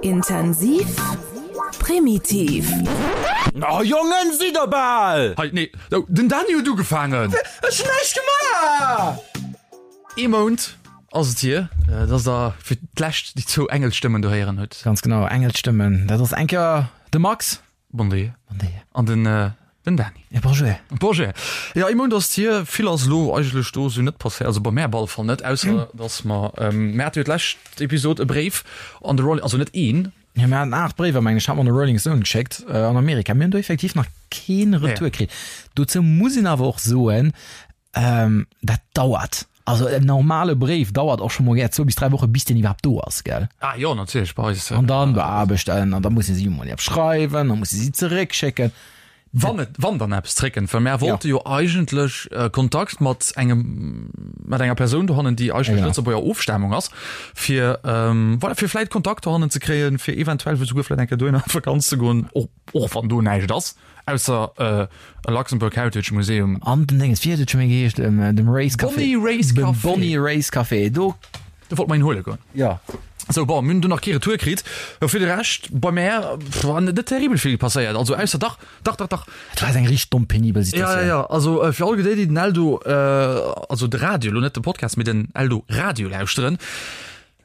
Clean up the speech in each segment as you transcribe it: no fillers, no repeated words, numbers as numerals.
Intensiv, primitiv. Oh Jongen, sidd der bal! Hei, nee, oh, den Dani huet ugefaangen! Ech hunn näischt gemaach! Ee Mount ass et hier, dass der fir d'lescht déi zwou Engelsstëmmen do héieren hutt. Ganz genau, Engelsstëmmen. Dat ass eng Kéier de Max. Bon Dia. Bon Dia. An den, den Dani. Ja, bonjour. Bonjour. Ja, ee Mount ass et hier. Vill ass elo eigentlech do esou net passéiert, also bei mär op alle Fall net, ausser dass mer, mir hate jo d'lescht Episod e Bréif an de Rolling, also net een, Ja, mir haten 8 Bréiwer, mengen ech, hat mer an de Rolling Stone geschéckt an Amerika. Mir hunn do effektiv nach keen Retour kritt. Dozou muss een awer och soen, dat dauert. Also en normale Bréif dauert och scho mol gär zwou bis dräi Woche bis deen iwwerhaapt do ass, gell? Ah jo, natierlech, bei eis. An dann beaarbechten an da musse si emol eppes schreiwen, da musse si zeréckschécken. Wann et, wann dann eppes zréckkënnt, well mär wollte jo eigentlech Kontakt mat engem, mat enger Persoun dohannen, déi eigentlech Genau. Lëtzebuerger Ofstamung ass, fir, voilà, fir vläit Kontakt dohannen ze kréien, fir eventuell esouguer vläit eng Kéier dohinner an d'Vakanz ze goen, och, och wann do näischt ass, ausser e Luxembourg Heritage Museum. An den Dénges, wéi huet et scho méi geheescht, dem Race Café. Bonny Race Dem Café. Bonny Race Café, do. Do wollte mer een huele goen. Jo. Sou, bon, mir hunn do nach kee Retour kritt. Jo, fir de Rescht, bei mär war net terribel vill passéiert. Also ausser, dach, dach, dach, dach. Et war eng richteg domm penibel Ja, ja, Situatioun. ja. Also fir all déi, déi den Eldo, also de Radio, elo net de Podcast, mee den Eldo Radio lauschteren.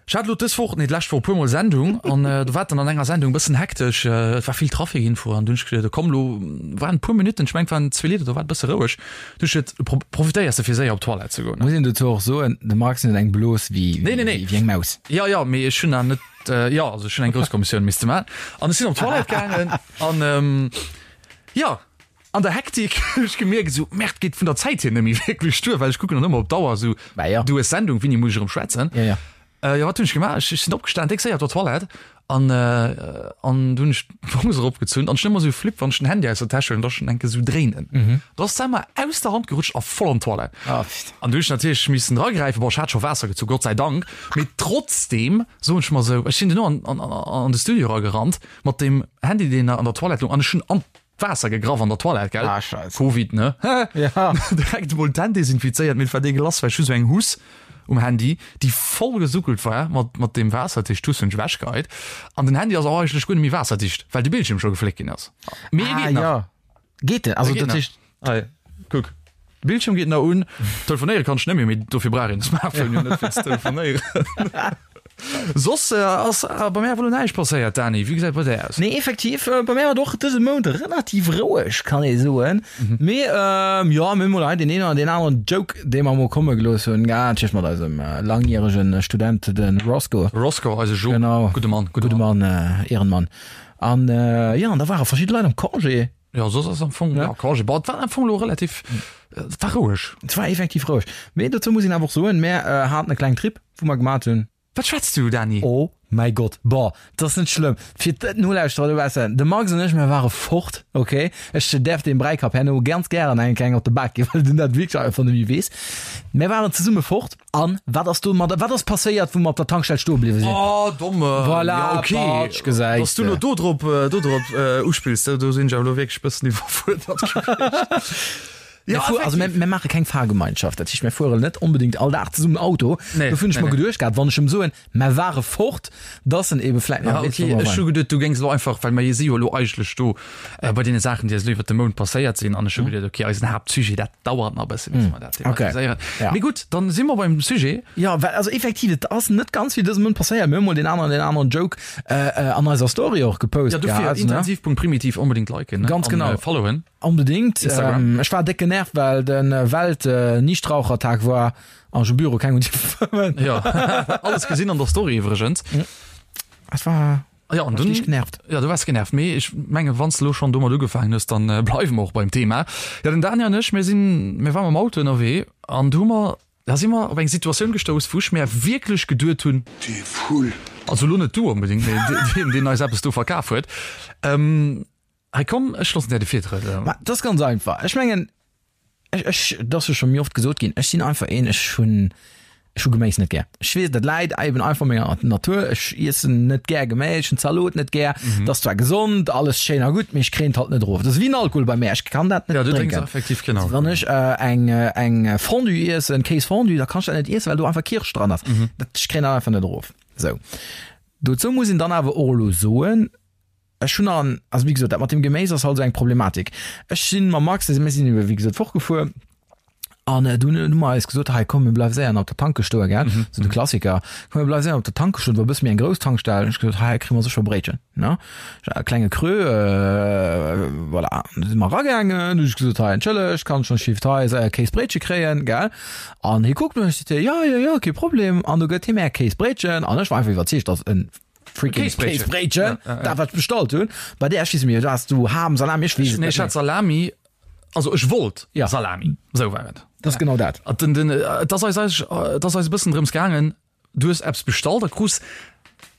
Ech hat elo dës Woch, nee d'lescht Woch e puermol Sendung an do war et dann an enger Sendung e bëssen hektesch. Et war vill Trafic Info an du hunn ech geduet, komm elo waren e puer Minutten, ech mengen et waren zwee Lidder, do war et e bësse roueg. Du hues geduet, profitéiers de fir séier op d'Toilette ze goen. Muss een dozou och soen, de Max huet eng Blos wéi Nee, nee, nee. wéi eng Maus. Jo, jo, mee ech hunn awer net, jo, also ech hunn eng grouss Kommissioun misste maachen an ech sinn op d'Toilette gaangen an, jo, an der Hektik hunn ech gemierkt esou, Merde, geet vun der Zäit hier net méi wierklech duer, well ech kucken dann ëmmer op d'Auer esou, Bah jo. du hues Sendung, wéini muss ech erëm schwätzen? Jo, jo. Jo, wat hunn ech gemaach? Ech sinn opgestan, déck séier op der Toilette an an du hunn ech d'Hose eropgezunn an ech hunn ëmmer esou Flipp, wann ech den Handy aus der Täsch huelen, dass ech en enke sou dréinen. Do ass d'Emma aus der Hand gerutscht a voll an d'Toilette. An du hunn ech natierlech missen dragräifen. Bon, ech hat scho Waasser gezu, Gott sei Dank, mee trotzdeem soen ech mer esou, ech sinn duerno an an an de Studio eragerannt mat deem Handy, deen an der Toilette loung an ech hunn an Waasser gegraff an der Toilette, gell? Ah, Scheiss. Covid, ne? Ja. Direkt emol d'Hänn desinfizéiert, mee et war deegelass, well ech hu sou eng Huss um Handy, déi voll gesuckelt war mat, mat deem Waasser, dat heescht d'Huss hunn ech ewechgeheit. An den Handy ass och eigentlech guer net méi waasserdicht, well de Bildschierm scho gefléckt ginn ass. Mee e Ah, geet nach. ja. Geet den? Also E geet dat nach. heescht. Hei, kuck. De Bildschierm geet nach un. Telefonéiere kann ech net méi, mee dofir brauch een de Smartphone jo net fir ze telefonéieren. Soss ass bei mär awer elo näischt passéiert, Dani. Wéi gesäit et bei där aus? Nee, effektiv, bei mär war et och dëse Mount relativ roueg, kann ee soen. Mee jo, mir hunn mol hei deen een oder deen aneren Joke, dee mer mol komme gelooss hunn, natierlech mat eisem langjärege Student, de Roscoe. Roscoe, eise Jo. Genau. Gudde Mann, gudde Mann. Gudde Mann, Ehrenmann. An jo, an da ware verschidde Leit am Congé. Jo, soss ass am Fong, ja, Congé. Bon, et war am Fong elo relativ, et war roueg. Et war effektiv roueg. Mee dozou muss een awer och soen, mär haten e klengen Trip, wou mer gemat hunn. Wat schwätz du, Dani? Oh mäi Gott, bon, et ass net schlëmm fir d'Nolauschterer dobaussen, de Max an ech, mär ware fort, ok? Ech däerf deem Bräikapp herno ganz gären eng kleng op de Bak ginn, well den dat wierklech einfach net méi weess. Mär waren zesumme fort. An wat ass do mat, wat ass passéiert, wou mer op der Tankstell stoe bliwwe sinn? Oh, domme. Voilà, ja, okay. Patsch, gesäis Dass du de. lo do drop, do drop uspills, do, do sinn ech awer lo wierklech bëssen iwwerfuerdert gewiescht. Mir Ja, fuer, also mir, effektiv. mir maache keng Fahrgemeinschaft, dat heescht, mir fueren net onbedéngt all Dag zesummen Auto. Nee, Dofir hunn ech nee, mer nee. geduecht gehat, wann ech em soen, mer ware fort, dass en ebe vläit nach Ja, weess, okay, wou mer ech hu waren. geduet, du géings elo einfach, well mer si jo elo eigentlech do äh, bei deene Saachen, déi eis elo iwwert de Mount passéiert sinn, an ech hu geduet, okay, eisen Haaptsujet, dat dauert nach e bësse, bis mer dat Hm. Okay. thematiséieren. Ja. Mee gutt, dann si mer beim Sujet. Ja, well also effektiv, et ass net ganz vill dëse Mount passéiert. Mir hu mol deen aneren, deen aneren Joke äh, äh, an eiser Story och gepost Ja, dofir gehat, ne? intensiv.primitiv unbedingt liken, ne? Ganz An, genau. äh, followen. Onbedingt. Instagram. Ähm, ech war déck genervt, well den Welt äh, Nichtrauchertag war an ech um Büro keng hunn dierfe fëmmen. Ja, alles gesinn an der Story iwwregens. Es war Ja, an War dunn ich genervt. Ja, du waars genervt, mee ech menge wann s de lo schonn domat ugefaangen hues, dann äh, bleiwe mer och beim Thema. Ja, den Daniel an ech, mir sinn, mir waren mam Auto ënnerwee an du hu mer, da si mer op eng Situatioun gestouss, wou ech mär wierklech geduet hunn, Dee Vull. also lo net du onbedéngt, mee deen, deen eis eppes do verkaf huet, ähm, hei komm, ech loossen där de Virtrëtt. Ma dat ass ganz einfach. Ech mengen, Ech, ech, dat ass jo scho méi oft gesot ginn, ech sinn einfach een, ech hunn, ech hu Geméis net gär. Ech weess, dat läit eben einfach menger Natur. Ech iessen net gär Geméis, ech hunn Zalot net gär. Dat ass zwar gesond, alles schéin a gutt, mee ech kréien et halt net erof. Dat ass wéi den Alkohol bei mär, ech kann dat net Ja, du drénks drénken. effektiv keen Alkohol. Wann ech eng, eng Fondue iessen, Kéisfondue, da kann ech dat net iessen, well do einfach Kirscht dran ass. Dat, ech kréien dat einfach net erof. Sou. Dozou muss een dann awer och elo soen, ech hunn an, also wéi gesot, dat mat dem Geméis ass halt esou eng Problematik. Ech sinn mam Max, mir sinn ebe wéi gesot fortgefuer an dunn hu mer eis gesot, hei komm mir bleiwe séier nach op der Tanke stoe gell, esou de Klassiker, komm mir bleiwe séier op der Tanke stoen, et war e bësse méi eng grouss Tankstell, hunn ech gesot, hei kréie mer sécher e Bréitchen, ne, e klenge Creux, voilà. Du si mer eragaangen, hunn ech gesot, hei entschëllegt, kann ech schonn Shift hei séier e Kéisbréitche kréien, gell. An hie kuckt mech, seet hie, jo, jo, jo, kee Problem. An du gëtt hie mär e Kéisbréitchen an ech war einfach iwwerzeegt, dass en freaking Kéisbréitchen, dat wat ech bestallt hunn. Bei där, ech weess net méi, has du Ham, Salami, ech weess et net méi. Nee, ech hat Salami, also ech wollt Salami, esou war et. Dat ass genau dat. Den, den, et ass eis, et ass eis e bëssen drëms gaangen, Du hues eppes bestallt a krus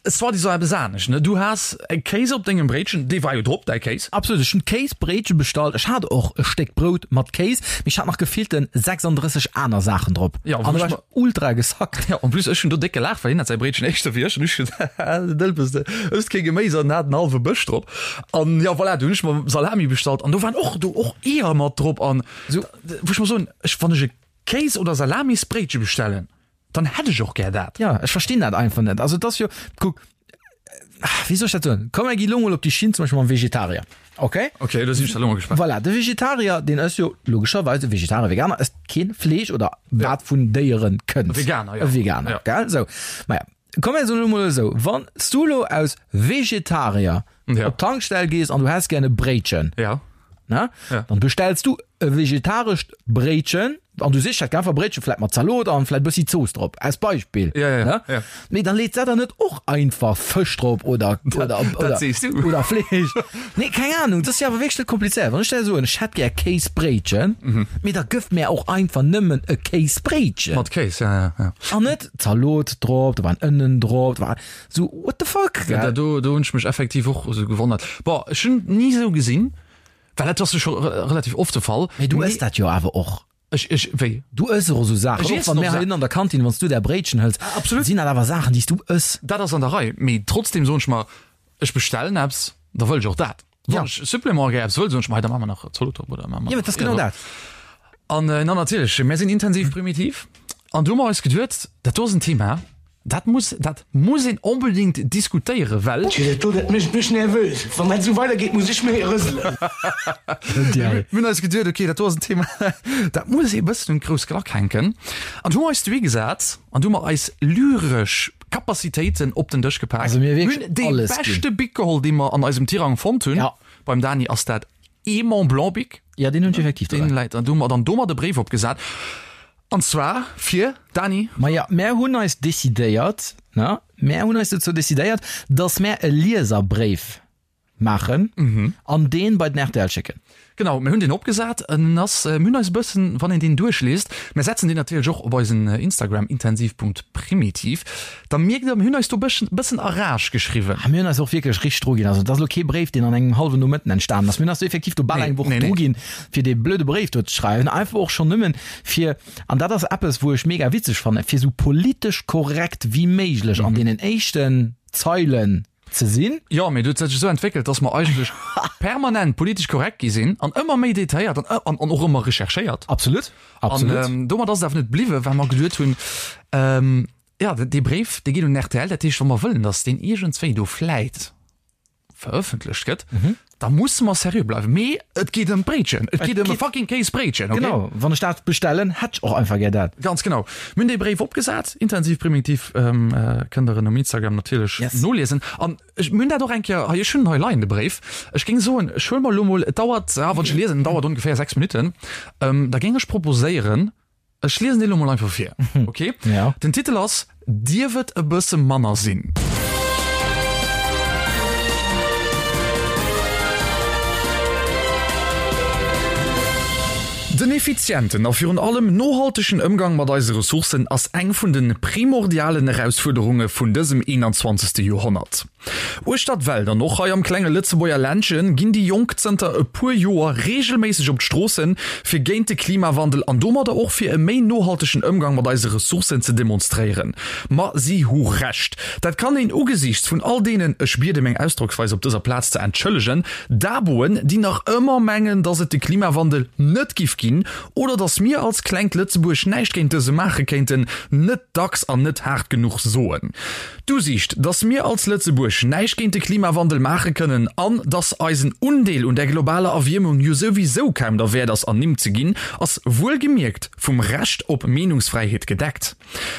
soi-disant eppes anescht, ne? Du has e Kéis op dengem Bréitchen, dee war jo drop, däi Kéis. Absolut, ech hunn Kéisbréitche bestallt. Ech hat och e Stéck Brout mat Kéis, mee ech hat nach gefillten 36 aner Saachen drop. Jo, an do war ech ultra gesackt. Jo, en plus ech hunn do déck gelaacht, well hien hat säi Bréitchen éischter wéi ech an ech hunn, haha, den Dëlpes, de ësst kee Geméis an hat en hallwe Bësch drop. An jo, voilà, du hunn ech mer Salami bestallt an do waren och do och Eeër mat drop an wou ech mer soen, ech, wann ech e Kéis oder Salamisbréitche bestellen, Dann hätt ech och gär dat. Ja, ech verstinn dat einfach net. Also et ass jo, kuck, wéi soll ech dat soen? Komm, mir gi lo mol op déi Schinn zum Beispill mam Vegetarier, okay? Okay, do sinn ech da lo mol gespaant. Voilà, de Vegetarier, deen ësst jo logescherweis, e Vegetarier, Veganer ësst keen Fleesch oder wat vun Déiere kënnt. E Veganer, jo. E Veganer, Ja. gell? Sou, maja, komm mir soen lo mol esou, wann s du lo aus Vegetarier Ja. op d'Tankstell gees an du häss gär e Bréitchen, Ja. ne? Ja. Dann bestells du e vegetarescht Bréitchen an du sichs dat einfach Bréitchen vläit mat Zalot an vläit bëssi Zooss drop als Beispill. Ja, ja, ne? ja. Mee dann leet se der net och einfach Fësch drop oder oder dat oder, sees du. oder Fleesch. Nee, keng Ahnung, dat ass jo awer wierklech net komplizéiert. Wann ech der soen, ech hätt gär Kéisbréitchen, Mhm. mee da gëff mär och einfach nëmmen e Kéisbréitchen. Mat Kéis, ja, ja, ja. An net Zalot drop, do waren Ënnen drop, do war Sou, what the fuck, Ja, gell? do, do hunn ech mech effektiv och esou gewonnert. Bon, ech hunn ni esou gesinn, well dat ass jo scho relativ oft de Fall. Mee du ëss dat jo awer och. Ech, ech, wéi? Du ëss och esou Saachen. Ech Och iessen wann och mär Sa- heihinne an der Kantin, wann s du där Bréitchen hëls, Absolut. sinn dat awer Saachen, déi s du ëss. Dat ass an der Rei, mee trotzdem soen ech mer, ech bestellen eppes, da wëll ech och dat. Ja. Wann ech Supplément gär eppes wëll, soen ech mer, hei, da maache mer nach Zalot drop oder maache mer Ja, mee dat ass genau nach dat. An na natierlech, mär sinn intensiv primitiv an du hu mer eis geduet, dat do ass en Thema, dat muss, dat muss een onbedéngt diskutéieren, well. Tjee, dat do, dat mécht mech nervös. Wann dat esou weidergeet, muss ech méi rëselen. Mir hunn eis geduet, okay, dat do ass en Thema, dat muss ee bëssen un d'grouss Klack hänken. An du hu mer eis dohi gesat an du hu mer eis lyresch Capacitéiten op den Dësch gepak. Also mir Mir wierklech hunn dee alles ginn. beschte Bic geholl, dee mer an eisem Tirang fonnt hunn. Ja. Beim Dani ass dat ee Mont Blanc Bic. Ja, deen hunn ech effektiv Deen dobäi. läit an du hu mer dann domat e Bréif opgesat. An zwar fir, Dani? Maja, mär hunn eis decidéiert, ne, mär hunn eis dozou decidéiert, dass mär e Lieserbréif maachen an deen bei den rtl schécken. Genau, mir hunn deen opgesat. En ass, mir hunn eis e bëssen, wann een deen duerchliest, mir setzen deen natierlech och op eisen Instagram intensiv.primitiv, da mierkt der, mir hunn eis do bëssen, bëssen a Rage geschriwwen. A mir hunn eis och wierklech richteg dru ginn. Also et ass elo kee Bréif, deen an engem hallwen Nomëtten entstanen ass. Mir hunn eis do effektiv do bal Nee, eng Woch nee, nee. dru ginn, fir dee blöde Bréif do ze schreiwen. Einfach och schonn nëmmen fir, an dat ass eppes, wou ech mega witzeg fannen, fir esou politesch korrekt wéi méiglech an deenen éischten Zeilen ze sinn. Jo, mee et huet sech esou entwéckelt, dass mer eigentlech permanent politesch korrekt gi sinn an ëmmer méi detailléiert an, an, an och ëmmer recherchéiert. Absolut, absolut. An domat ass et awer net bliwwen, well mer geduet hunn, ähm, ja, dee Bréif, dee geet un rtl, dat heescht, wa mer wëllen, dass deen iergendswéi do vläit verëffentlecht gëtt, da musse mer seriö bleiwen. Mee et geet ëm d'Bréitchen, et geet ëm e fucking Kéisbréitchen, okay? Genau, wann ech dat bestellen, hätt ech och einfach gär dat. Ganz genau. Mir hunn dee Bréif opgesat, intensiv primitiv, kënnt der en um Instagram natierlech Yes. noliesen. An ech, mir hunn dat och eng Kéier hei, ech hunn en hei leien, de Bréif. Ech géing soen, ech huele mer elo mol, et dauert, ah, wann ech e liesen, en dauert ongeféier 6 Minutten, da géing ech proposéieren, Ech liesen dee lo mol einfach vir, ok? Ja. Den Titel ass Dierf et e bësse manner sinn? Den effizienten a virun allem nohaltegen Ëmgang mat eise Ressourcen ass eng vun de primordialen Erausfuerderunge vun dësem 21. Joerhonnert. Uechter d'Welt an och hei am klenge Lëtzebuerger Ländche ginn déi Jonk zënter e puer Joer reegelméisseg op d'Stroossen, fir géint de Klimawandel an domadder och fir e méi nohaltegen Ëmgang mat eise Ressourcen ze demonstréieren. Ma si hu Recht. Dat kann een ugesiichts vun all deenen, ech biede meng Ausdrocksweis op dëser Plaz ze entschëllegen, Daboen, déi nach ëmmer mengen, datt et de Klimawandel net giff ginn. ginn oder dass mir als klengt Lëtzebuerg näischt géint dëse maache kéinten, net dacks an net haart genuch soen. D'Usiicht, dass mir als Lëtzebuerg näischt géint de Klimawandel maache kënnen an dass eisen Undeel un der globaler Erwiermung jo souwisou kaum derwäert ass ernimmt ze ginn, ass wuelgemierkt vum Recht op Meenungsfräiheet gedeckt.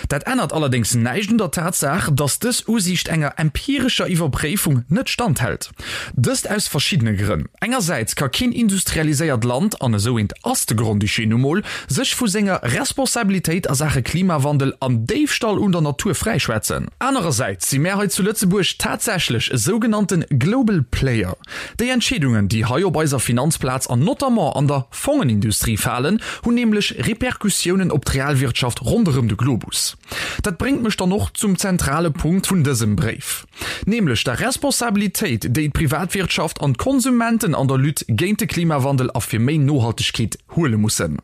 Dat ännert allerdéngs näischt un der Tatsaach, dass dës Usiicht enger empirescher Iwwerpréifung net standhält. Dëst aus verschiddene Grënn. Engersäits ka keen industrialiséiert Land, an esou eent ass de Grand-Duché nu mol, sech vu senger Responsabilitéit a Saache Klimawandel an Déifstall un der Natur fräischwätzen. Anerersäits si mär hei zu Lëtzebuerg tatsächlech e sougenannte Global Player. Déi Entscheedungen, déi hei op eiser Finanzplaz an notamment an der Fongenindustrie falen, hunn nämlech Repercussiounen op d'Realwirtschaft ronderëm de Globus. Dat bréngt mech dann och zum zentrale Punkt vun dësem Bréif, nämlech der Responsabilitéit, déi d'Privatwirtschaft an d'Konsumenten an der Lutte géint de Klimawandel a fir méi Nohaltegkeet huele mussen.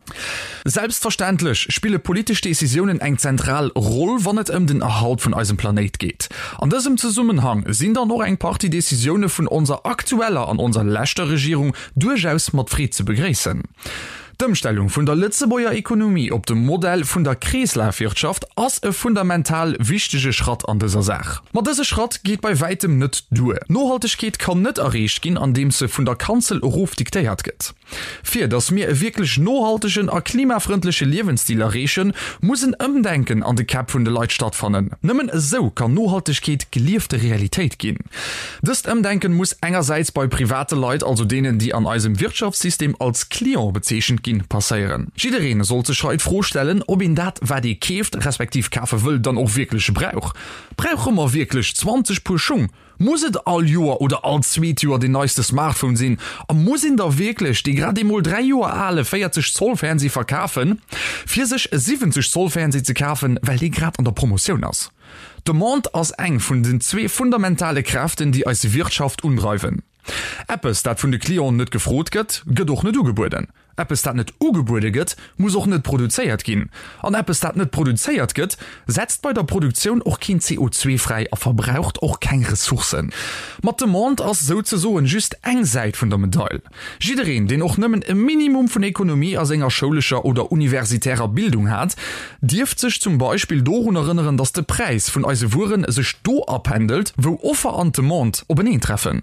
Selbstverständlech spille politesch Decisiounen eng zentral Roll, wann et ëm den Erhalt vun eisem Planéit geet. An dësem Zesummenhang sinn dann och eng Partie Decisioune vun onser aktueller an onser leschter Regierung duerchaus mat Freed ze begréissen. D'Ëmstellung vun der Lëtzebuerger Ekonomie op de Modell vun der Kreeslafwirtschaft ass e fundamental wichtege Schratt an dëser Saach. Ma dëse Schratt geet bei wäitem net duer. Nohaltegkeet kann net erreecht ginn, andeems se vun der Kanzel erof diktéiert gëtt. Fir datt mir e wierklech nohaltegen a klimafrëndleche Liewensstil erreechen, muss en Ëmdenken an de Käpp vun de Leit stattfannen. Nëmmen esou kann Nohaltegkeet geliefte Realitéit ginn. Dëst Ëmdenken muss engersäits bei private Leit, also deenen, déi an eisem Wirtschaftssystem als Client bezeechent ginn, passéieren. Jiddereen sollt sech hei d'Fro stellen, ob een dat, wat ee keeft, respektiv kafe wëll, dann och wierklech brauch. Brauche mer wierklech 20 Puer Schung? Muss et all Joer oder all zweet Joer deen neiste Smartphone sinn? A muss een da wierklech dee grad emol 3 Joer ale 40 Zoll Fernseh verkafen, fir sech e 70 Zoll Fernseh ze kafen, well dee grad an der Promotioun ass? D'Demande ass eng vun den zwee fundamentale Kräften, déi eis Wirtschaft undreiwen. Eppes, dat vun de Clienten net gefrot gëtt, gëtt och net ugebueden. Eppes, dat net ugebuede gëtt, muss och net produzéiert ginn. An eppes, dat net produzéiert gëtt, setzt bei der Produktioun och keen CO2 fräi a verbraucht och keng Ressourcen. Ma d'Demande ass souzesoen just eng Säit vun der Medail. Jiddereen, deen och nëmmen e Minimum vun Ekonomie a senger schoulescher oder universitärer Bildung hat, dierft sech zum Beispill dorun erënneren, datt de Präis vun eise Wuere sech do apendelt, wou Offer an Demande openeentreffen.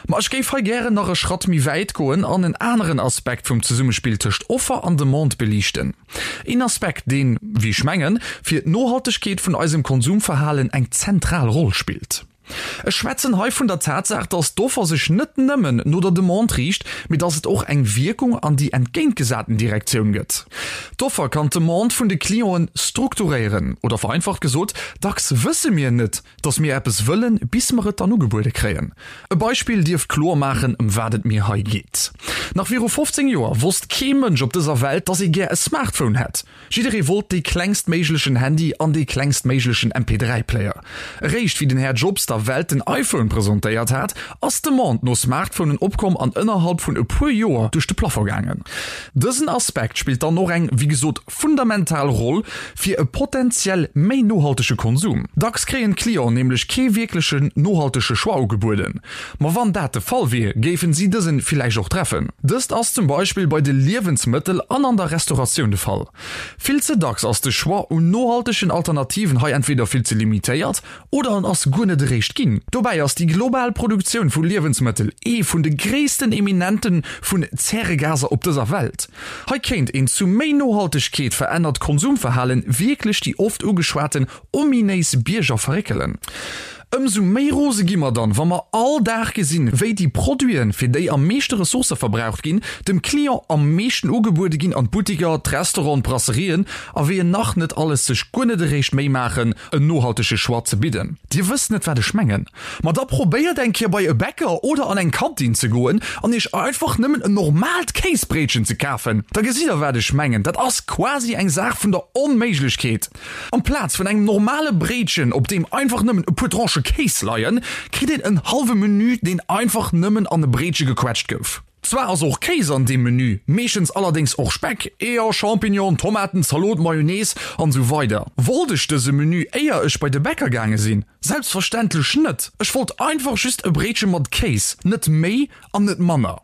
Ma ech géif hei gären nach e Schratt méi wäit goen an en aneren Aspekt vum Zesummespill tëscht Offer an Demande beliichten. Een Aspekt, deen, wéi ech mengen, fir d'Nohaltegkeet vun eisem Konsumverhalen eng zentral Roll spillt. Ech schwätzen hei vun der Tatsaach, dass d'Offer sech net nëmmen no der Demande riicht, mee dass et och eng Wierkung an déi entgéintgesaten Direktioun gëtt. D'Offer kann d'Demande vun de Clienten strukturéieren, oder vereinfacht gesot, dacks wësse mir net, dass mir eppes wëllen, bis mer et dann ugebuede kréien. E Beispill dierft kloer maachen, ëm wat et mir hei geet. Nach viru 15 Joer wosst kee Mënsch op dëser Welt, dass ee gär e Smartphone hätt. Jidderee wollt dee klengstméiglechen Handy an dee klengstméiglechen MP3 Player. Eréischt wéi den Här Jobs der Welt den iPhone presentéiert hat, ass d'Demande no Smartphonen opkomm an ënnerhalb vun e puer Joer duerch de Plafond gaangen. Dësen Aspekt spillt dann och eng, wéi gesot, fundamental Roll fir e potentiell méi nohaltege Konsum. Dacks kréien d'Clienten nämlech kee wierklechen nohaltege Choix ugebueden. Ma wann dat de Fall wier, géifen si dësen villäicht och treffen. Dëst ass zum Beispill bei de Liewensmëttel an an der Restauratioun de Fall. Vill ze dacks ass de Choix un nohaltegen Alternativen hei entweder vill ze limitéiert oder en ass guer net eréischt ginn. Dobäi ass déi global Produktioun vu Liewensmëttel ee vun de gréissten Eminente vun Zäregaser op dëser Welt. Hei kéint een zu méi Nohaltegkeet verännert Konsumverhalen wierklech déi oft ugeschwaten ominéis Bierger verréckelen. Ëmsou méi rose gi mer dann, wa mer all Dag gesinn, wéi déi Produiten, fir déi am meeschte Ressourcë verbraucht ginn, dem Client am meeschten ugebuede ginn an d'Buttiker, d'Restauranten, d'Brasserien a wéi en nach net alles sech guer net eréischt Méi maachen, en nohaltege Choix ze bidden. Dir wësst net, wat ech mengen? Ma da probéiert eng Kéier bei e Bäcker oder an eng Kantin ze goen an iech einfach nëmmen en normaalt Kéisbréitchen ze kafen. Da gesitt der, wat ech mengen. Dat ass quasi eng Saach vun der Onméiglechkeet. Amplaz vun engem normale Bréitchen, op deem einfach nëmmen e puer Tranchë Kéis leien, kritt een en hallwe Menü, deen einfach nëmmen an e Bréitche gequetscht gouf. Zwar ass och Kéis an deem Menü, meeschtens allerdéngs och Speck, Eeër, Champignon, Tomaten, Zalot, Mayonnaise an esou weider. Wollt ech dëse Menü éier ech bei de Bäcker gaange sinn? Selbstverständlech net! Ech wollt einfach just e Bréitche mat Kéis, net méi an net manner.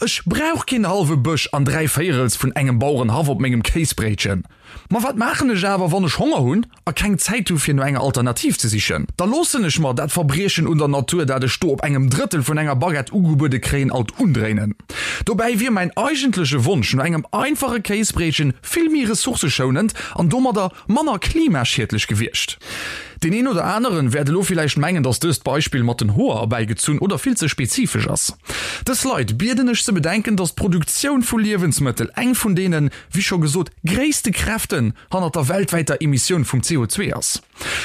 Ech brauch keen hallwe Bësch an dräivéierels vun engem Bauerenhaff op mengem Kéisbréitchen. Ma wat maachen ech awer, wann ech Honger hunn a keng Zäit hu fir no enger Alternativ ze sichen? Da loossen ech mer dat Verbriechen un der Natur, dat ech do op engem Drëttel vun enger Baguette ugebuede kréien, alt undréinen. Dobäi wier mäin eigentleche Wonsch no engem einfache Kéisbréitchen vill méi ressourceschounend an domadder manner klimaschiedlech gewiescht. Deen een oder aneren wäert elo villäicht mengen, dass dëst Beispill mat den Hoer erbäigezunn oder vill ze spezifesch ass. Dës Leit bieden ech ze bedenken, dass d'Produktioun vu Liewensmëttel eng vun deenen, wéi scho gesot, gréisste Kräften hannert der weltwäiter Emissioun vum CO2 ass.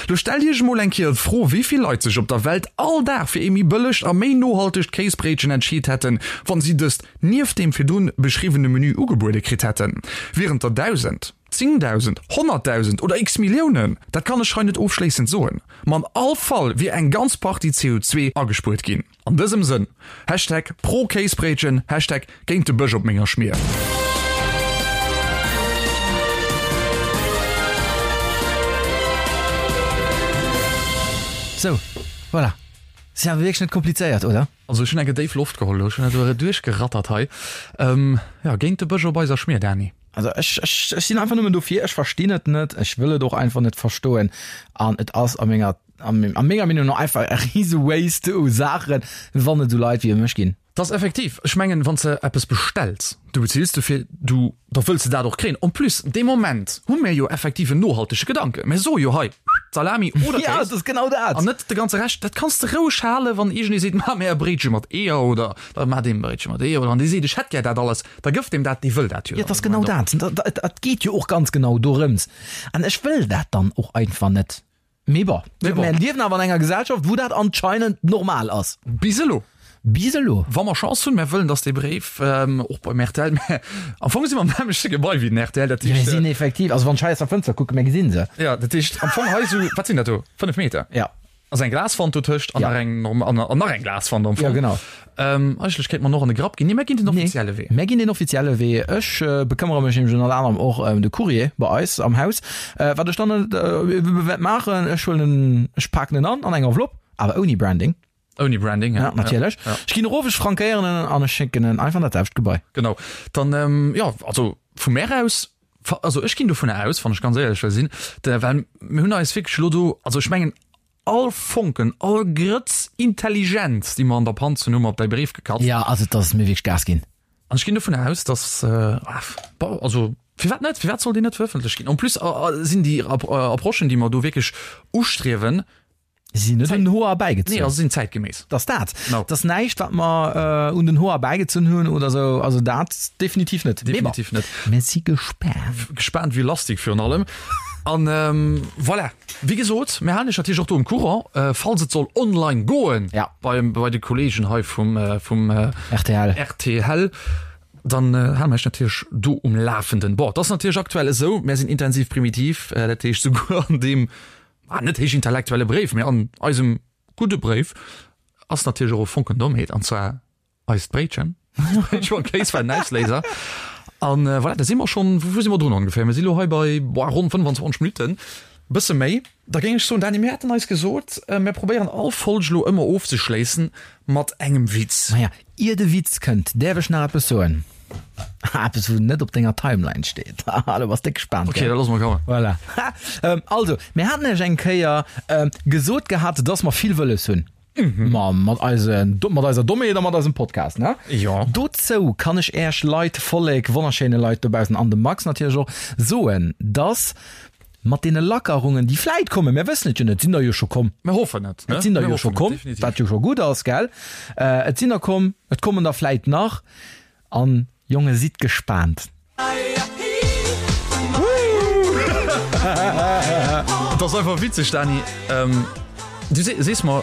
Lo stellt iech emol eng Kéier d'Fro, wéi vill Leit sech op der Welt all Dag fir ee méi bëllegt a méi nohaltegt Kéisbréitchen entscheet hätten, wann si dëst nieft deem virdrun beschriwwene Menü ugebuede kritt hätten. Wieren et der 1.000? 10.000, 100.000 oder x Milliounen? Dat kann ech hei net ofschléissend soen, ma an all Fall wier eng ganz Partie CO2 agespuert ginn. An dësem Sënn, Hashtag pro Kéisbréitchen, Hashtag géint de Bësch op menger Schmier. Sou, voilà. Si awer wierklech net komplizéiert, oder? Also ech hunn eng déif Loft geholl elo, ech hunn dat elo duerchgerattert hei. Jo, géint de Bësch op eiser Schmier, Dany. Also ech, ech, ech sinn einfach nëmmen dofir, ech verstinn et net, ech wëll et och einfach net verstoen an et ass a menger, a menger Meenung no einfach e rise Waste u Saachen, wann et esou Leit wéi mech ginn. Dat ass effektiv, ech mengen, wann s de eppes bestells, du bezills dofir, du, da wëlls de dat och kréien. En plus, dee Moment hu mir jo effektiv en nohaltege Gedanken, mir soe jo hei, Salami oder Kéis. Ja, et ass genau dat. An net de ganze Rescht, dat kanns de roueg halen, wann iergendee seet, Maach mir e Bréitche mat Eeër oder da maach deem e Bréitche mat Eeër oder wann dee seet, ech hätt gär dat alles. Da gëff deem dat, dee wëll dat jo. Jo, et ass genau dat. Et geet jo och ganz genau dorëms. An ech wëll dat dann och einfach net. Mee bon, mir liewen awer an enger Gesellschaft, wou dat anscheinend normal ass. Bis elo. Bis elo. Wa mer Chance hunn, mir wëllen, datt dee Bréif och beim rtl, mä am Fong si mer am nämmlechte Gebai wéi den rtl, dat heescht. Mir sinn effektiv, also wann ech hei aus der Fënster kucken, mir gesinn se. Jo, dat heescht am Fong hei esou, wat sinn dat do, 5 Meter? Jo. Ass eng Glaswand dotëscht an nach eng an nach eng Glaswand am Fong. Ja, genau. Ähm, eigentlech kéint mer och an de Grapp ginn. Nee, mär ginn den offizielle Wee. Mär ginn den offizielle Wee. Ech bekëmmere mech nämlech ënnert anerem och ëm de Courrier bei eis am Haus. Wat ech dann wäert maachen, ech huelen en, ech paken en an an eng Enveloppe, awer ouni Branding. Ouni Branding, ja. Ja, natierlech. Ja. Ech ginn erof, ech frankéieren en an ech schécken en einfach an dat selwecht Gebai. Genau. Dann, jo, also vu mär aus, also ech ginn dovunner aus, wann ech ganz éierlech wëll sinn, well mir hunn eis wierklech elo do, also ech mengen all Fonken, all Grëtz Intelligenz, déi mer an der Panz hunn, hu mer op däi Bréif gekatzt. Ja, also et ass mir wierklech Gas ginn. An ech ginn dovunner aus, dass, bon, also firwat net, firwat soll deen net verëffentlecht ginn? En plus sinn déi Approchen, déi mer do wierklech ustriewen, Si sinn net un den Hoer erbäigezunn. Nee, also sinn zäitgeméiss. Dat ass dat. No. Dat ass näischt, wat mer un den Hoer erbäigezunn hunn oder esou. Also dat definitiv net. Definitiv net. Mir si gespaant. Gespaant wéi Lastik virun allem. An voilà, wéi gesot, mir halen iech natierlech och do um Courant, falls et soll online goen. Ja. Bei, bei de Kolleegen hei vum, vum rtl. Rtl. Dann hale mer iech natierlech do um Lafenden. Bon, et ass natierlech aktuell esou, mir sinn intensiv primitiv, dat heescht souguer an deem Ah, net héichintellektuelle Bréif, mee an eisem gudde Bréif ass natierlech och e Fonken Dommheet, an zwar eist Bréitchen. Bréitchen mam Kéis war den Ausléiser. An voilà, da si mer schonn, wou si mer drun ongeféier? Mir si lo hei bei, boah, ronn 25 Minutten, bësse méi. Da géing ech soen, Dany, mir haten eis gesot, mir probéieren all Folg lo ëmmer ofzeschléissen mat engem Witz. Maja, Ier de Witz kënnt, däerf ech nach eppes soen? Eppes, wou net op denger Timeline steet. Haha, do bass déck gespaant, Ok, da loosse mer kommen. Voilà. Also, mir haten iech eng Kéier gesot gehat, dass mer vill wëlles hunn. Ma mat eise, mat eiser Dommheet a mat eisem Podcast, ne? Jo. Dozou kann ech Äech Leit, Vollek, wonnerschéine Leit dobaussen an dem Max natierlech och, soen, dass Mat deene Lackerungen, déi vläit kommen, mir wëssen et jo net, et sinn der jo scho komm. Mir hoffen et, ne? Et sinn der jo scho komm, wat jo scho gutt ass, gell? Et sinn der komm, et kommen der vläit nach. An, Jonge, sidd gespaant. Et ass einfach witzeg, Dany. Du sees mer,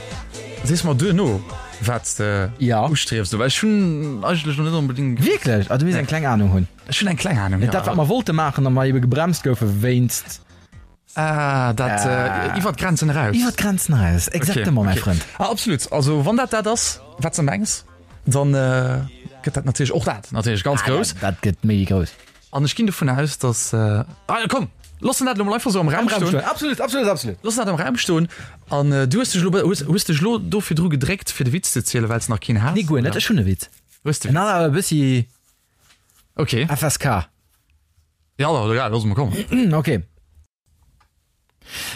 sees mer duerno, wat s de ustriefs, well ech hunn eigentlech nach net onbedéngt. Wierklech? Ah, du misst eng kleng Anung hunn. Ech hunn eng kleng Ahnung, jo. Dat, wat mer wollte maachen a mer ebe gebremst goufe wéinst. Ah, dat iwwer d'Grenzen eraus. Iwwer d'Grenzen eraus, exactement, mäi Frënd. Ah, absolut. Also, wann dat dat ass, wat s de mengs, dann gëtt dat natierlech och dat natierlech ganz grouss. Dat gëtt méi wéi grouss. An ech ginn dovun aus, dass. Ah, komm, loossen dat elo mol einfach esou am Raum stoen. Absolut, absolut, absolut. Loossen dat am Raum stoen. An du hues dech elo, hues dech elo do virdru gedréckt, fir de Witz ze zielen, well s de nach keen has? Nee, guer net. Ech hunn e Witz. Hues de En ass awer e bëssi Ok. FSK. Ja, da, egal, looss mol kommen. Ok.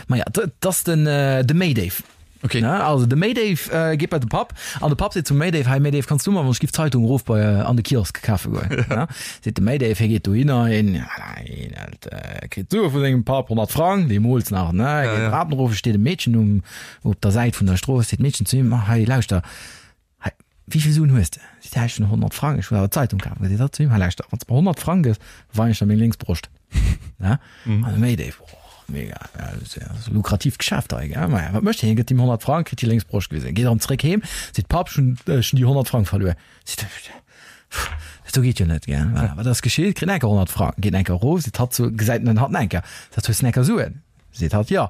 Maja, 't ass den de Méidéif. Ok. Ne, also de Méidéif geet bei de Papp an de Papp seet zum Méidéif, Hei Méidéif, kanns du mer wann ech giff d'Zeitung erof bei an de Kiosk kafe goen? Ne, seet de Méidéif, hie geet dohinner, hien, voilà, hien hält, kritt d'Sue vu sengem Papp, 100 Frang, deemools nach, ne, geet ja. d'Trapen erof, et steet e Meedchen um, op der Säit vun der Strooss, seet d'Meedchen zu him, Hei, lauschter, Hei, wéi vill Suen hues de? Seet hie, Ech hunn 100 Frang, ech wëll awer d'Zeitung kafen. Seet hatt zu him, Hei, lauschter, wann s de mer 100 Frang gëss, weien ech der meng lénks Broscht. Ne? An de Méidéif, Oh, mega, ja, dat ass ja e lukratiivt Geschäft hei, gell? Maja, wat mécht hien? Hie gëtt him 100 Frang, kritt déi lénks Broscht gewisen. Geet erëm zréck heem, seet, Papp, ech hunn, ech hunn déi 100 Frang verluer. Seet hie, Pff, dat do geet jo net, gell? Voilà, wat ass geschitt? Kritt enker 100 Frang, geet enker erof, seet hatt zu, gesäit en hatt enker, seet, Hues de enker Suen? Seet hatt, Jo.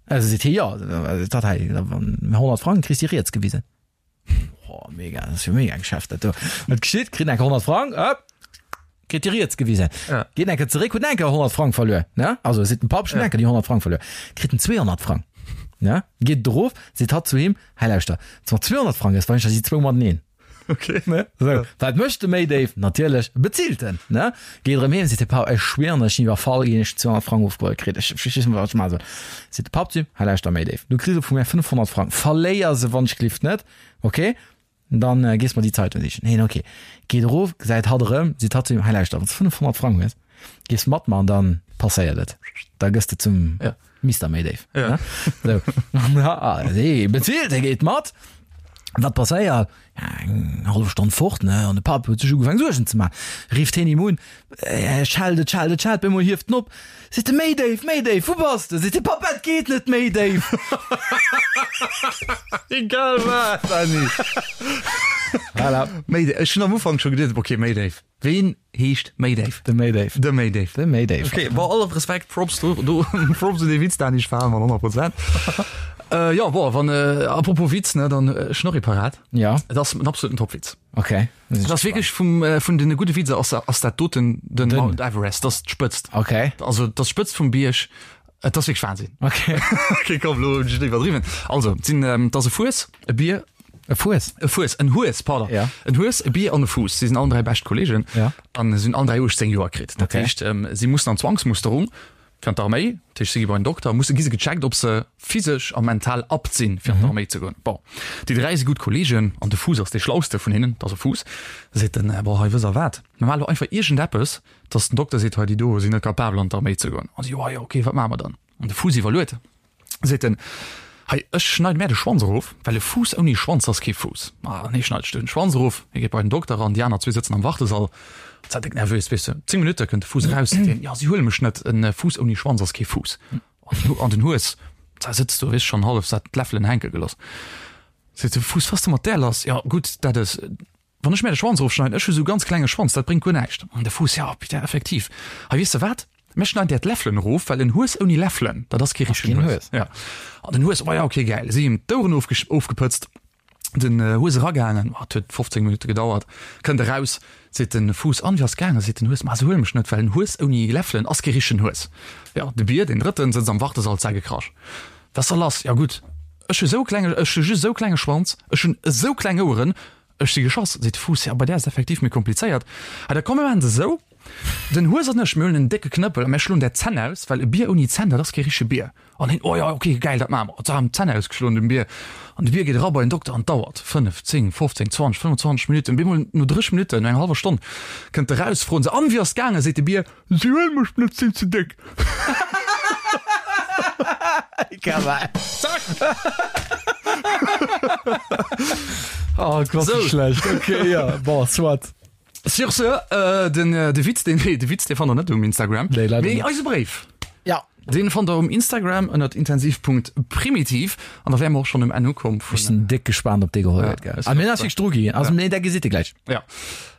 Also seet hie, jo, dat hei, wann 100 Frang kriss déi riets gewisen. Oh, mega, dat ass jo mega Geschäft dat do. Wat geschitt? Kritt enker 100 Frang, ëpp, kritt déi riets gewisen. Ja. Geet enker zeréck, huet enker 100 Frang verluer, ne? Also seet den Papp, ech hunn enker déi 100 Frang verluer. Kritt en 200 Frang, ne? Geet erof, seet hatt zu him, hei lauschter, wann s 200 Frang gëss, weisen ech der déi zwou mateneen. Okay. Ne? So, wat mécht de Méidéif? Natierlech bezilt en, ne? Geet erëm heem, seet de Papp, ech schwieren, ech sinn iwwerfall ginn, ech hunn 200 Frang ofgeholl kritt, ech ech weess net, wat ech maache soll. Seet de Papp zu him, hei lauschter Méidéif, du kriss elo vu mär 500 Frang, verléier se wann ech glift net, okay? Dann gees mer déi Zeitung sichen. Hien, okay. Geet erof, gesäit hatt erëm, seet hatt zu him, hei lauschter, wann s de 500 Frang hues, gees mat mer an dann passéiert et, da gëss de zum Ja. Mister Méidéif. Ja. Ne? So. Ja, hee bezilt, hie geet mat. Wat passéiert? Ja, eng hallef Stonn fort, ne? An de Papp huet sech ugefaangen Suergen ze maachen. Rifft hien him un, äh, schellt et, schellt et, schellt, op eemol hieft en op, seet e, Méi déif, méi déif, wou bass de? Seet de Papp, Et geet net méi déif. Egal wat, Dany. Voilà. Méi déif. Ech hunn am Ufank scho geduet, okay, méi déif. Ween heescht Méidéif? De Méidéif. De Méidéif. De Méidéif. Okay, bon, all Respekt, Props do, do Props un dee Witz, Dani, ech falen mat 100 Prozent. Äh, jo, bon, wann, äh, apropos Witz, ne, dann ech hunn och ee parat. Ja. Et ass en absoluten Topwitz. Okay. Et ass wierklech vum, äh, vun den gudde Witzer ass, ass dat doten den Den. Mount Everest, dat ass d'Spëtzt. Okay. Also, dat ass d'Spëtzt vum Bierg. Et ass wierklech Wahnsinn. Okay. Okay, komm, lo hunn ech et iwwerdriwwen. Also, et sinn, ähm, et ass e Fues, e Bier, E Fues? E Fues, en Hues, pardon. Ja. En Hues, e Bier an e Fuuss. Si sinn allen 3 bescht Kollegen. Ja. An si hunn allen 3 18 Joer kritt. Dat Okay. heescht, ähm, si mussen an Zwangsmusterung fir an d'Arméi. Dat heescht, si gi bei den Dokter, musse gi se gecheckt, ob se physesch a mental apt sinn, fir an d'Arméi ze goen. Bon, déi 3 si gutt Kollegen an de Fuuss ass dee schlauste vun hinnen, dat ass e Fuuss. Seet en, Bon, hei, wësst Der wat, mir maache lo einfach iergendeppes, dass den Dokter seet, hei, déi do sinn net capabel an d'Arméi ze goen. An si, Jo, jo, okay, wat maache mer dann? An de Fuuss iwwerluet. Seet en, Hei, ech schneide mär de Schwanz erof, well e Fuuss ouni Schwanz ass kee Fuuss. An hie schneit sech den Schwanz erof, hie geet bei den Dokter an déi aner zwee sëtzen am Wartesall. Zat déck nervös, weess de. 10 Minutte kënnt de Fuuss eraus, seet hien, Jo, si huele mech net, en Fuuss ouni Schwanz ass kee Fuuss. An den Hues, da sëtzt do, weess schonn hallef sat, d'Läffelen hänke geloss. Seet de Fuuss, Was de mat där lass? Jo, gutt, dat es. Wann ech mär de Schwanz erofschneiden, ech hu sou ganz klenge Schwanz, dat bréngt guer näischt. An de Fuuss, Jo, putain, effektiv. Hei, weess de wat? Mär schneiden där d'Läffelen erof, well en Hues ouni Läffelen, dat ass kee richtegen Hues. Ja. An den Hues, Oh ja, okay, gäil. Si him d'Oueren ofgepëtzt, den Hues eragaangen, oh, et huet 15 Minutte gedauert, kënnt eraus, seet de Fuuss, An, wéi ass gaangen? Seet den Hues, Ma se huele mech net, well en Hues ouni Läffelen ass kee richtegen Hues. Jo, de Bier, deen Drëtten, sëtzt am Wartesall, zägekrasch. Wat ass da lass? Jo gutt, ech hu sou klenge, ech hu just esou klenge Schwanz, ech hunn esou kleng Oueren, ech si geschoss, seet de Fuuss. Jo, bei där ass et effektiv méi komplizéiert. Ha, da komm mir maachen et esou, den Hues an ech, mir huelen en décke Knëppel a mir schloen där d'Zänn aus, well e Bier ouni Zänn, dat ass kee richtege Bier. An hien, Oh jo, ok, gäil, dat maache mer. An se haben d'Zänn ausgeschloen dem Bier. An de Bier geet era bei den Dokter an et dauert 5, 10, 15, 20, 25 Minutten. Bemol no 30 Minutten, no enger hallwer Stonn, kënnt e raus, froen se, An, wéi ass et gaangen? Seet de Bier, Si huele mech net, sinn ze déck. Zack! Oh Gott, wéi schlecht. Okay, ja, bon, soit. Sur ce, den de Witz, deen, nee, de Witz, dee fannt der net um Instagram. Nee, leider Mee net. eise Bréif. Ja. Deen fannt der um Instagram ënnert intensiv.primitiv. An da wäre mer och schonn um Enn ukomm Ech vun. sinn déck gespaant, ob dee geholl Ja, gëtt, gell. ech Ah, mir och. ass wierklech dru ginn. Also, nee, dat gesitt Dir gläich. Ja.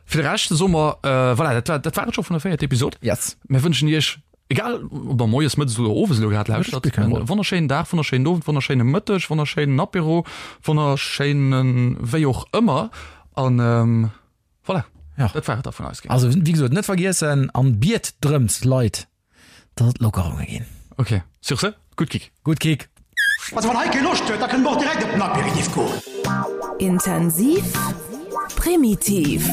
Fir de Rescht soe mer, voilà, dat war, dat war et scho vun der véierter Episod. Yes. Mir wënschen Iech, egal ob der moies, mëttes oder owes elo grad lauschtert, spillt keng e Roll. wonnerschéinen Dag, wonnerschéinen Owend, wonnerschéine Mëtteg, wonnerschéinen Apéro, wonnerschéinen wéi och ëmmer. An voilà, Ja. dat war et da vun eis. Also, wéi gesot, net vergiessen an biet drëms, Leit, dass et Lockerunge ginn. Ok, sur ce, gutt Kick! Gutt Kick! Also wann hei kee Loscht huet, da kënne mer och direkt op den Aperitif goen. Intensiv. Primitiv.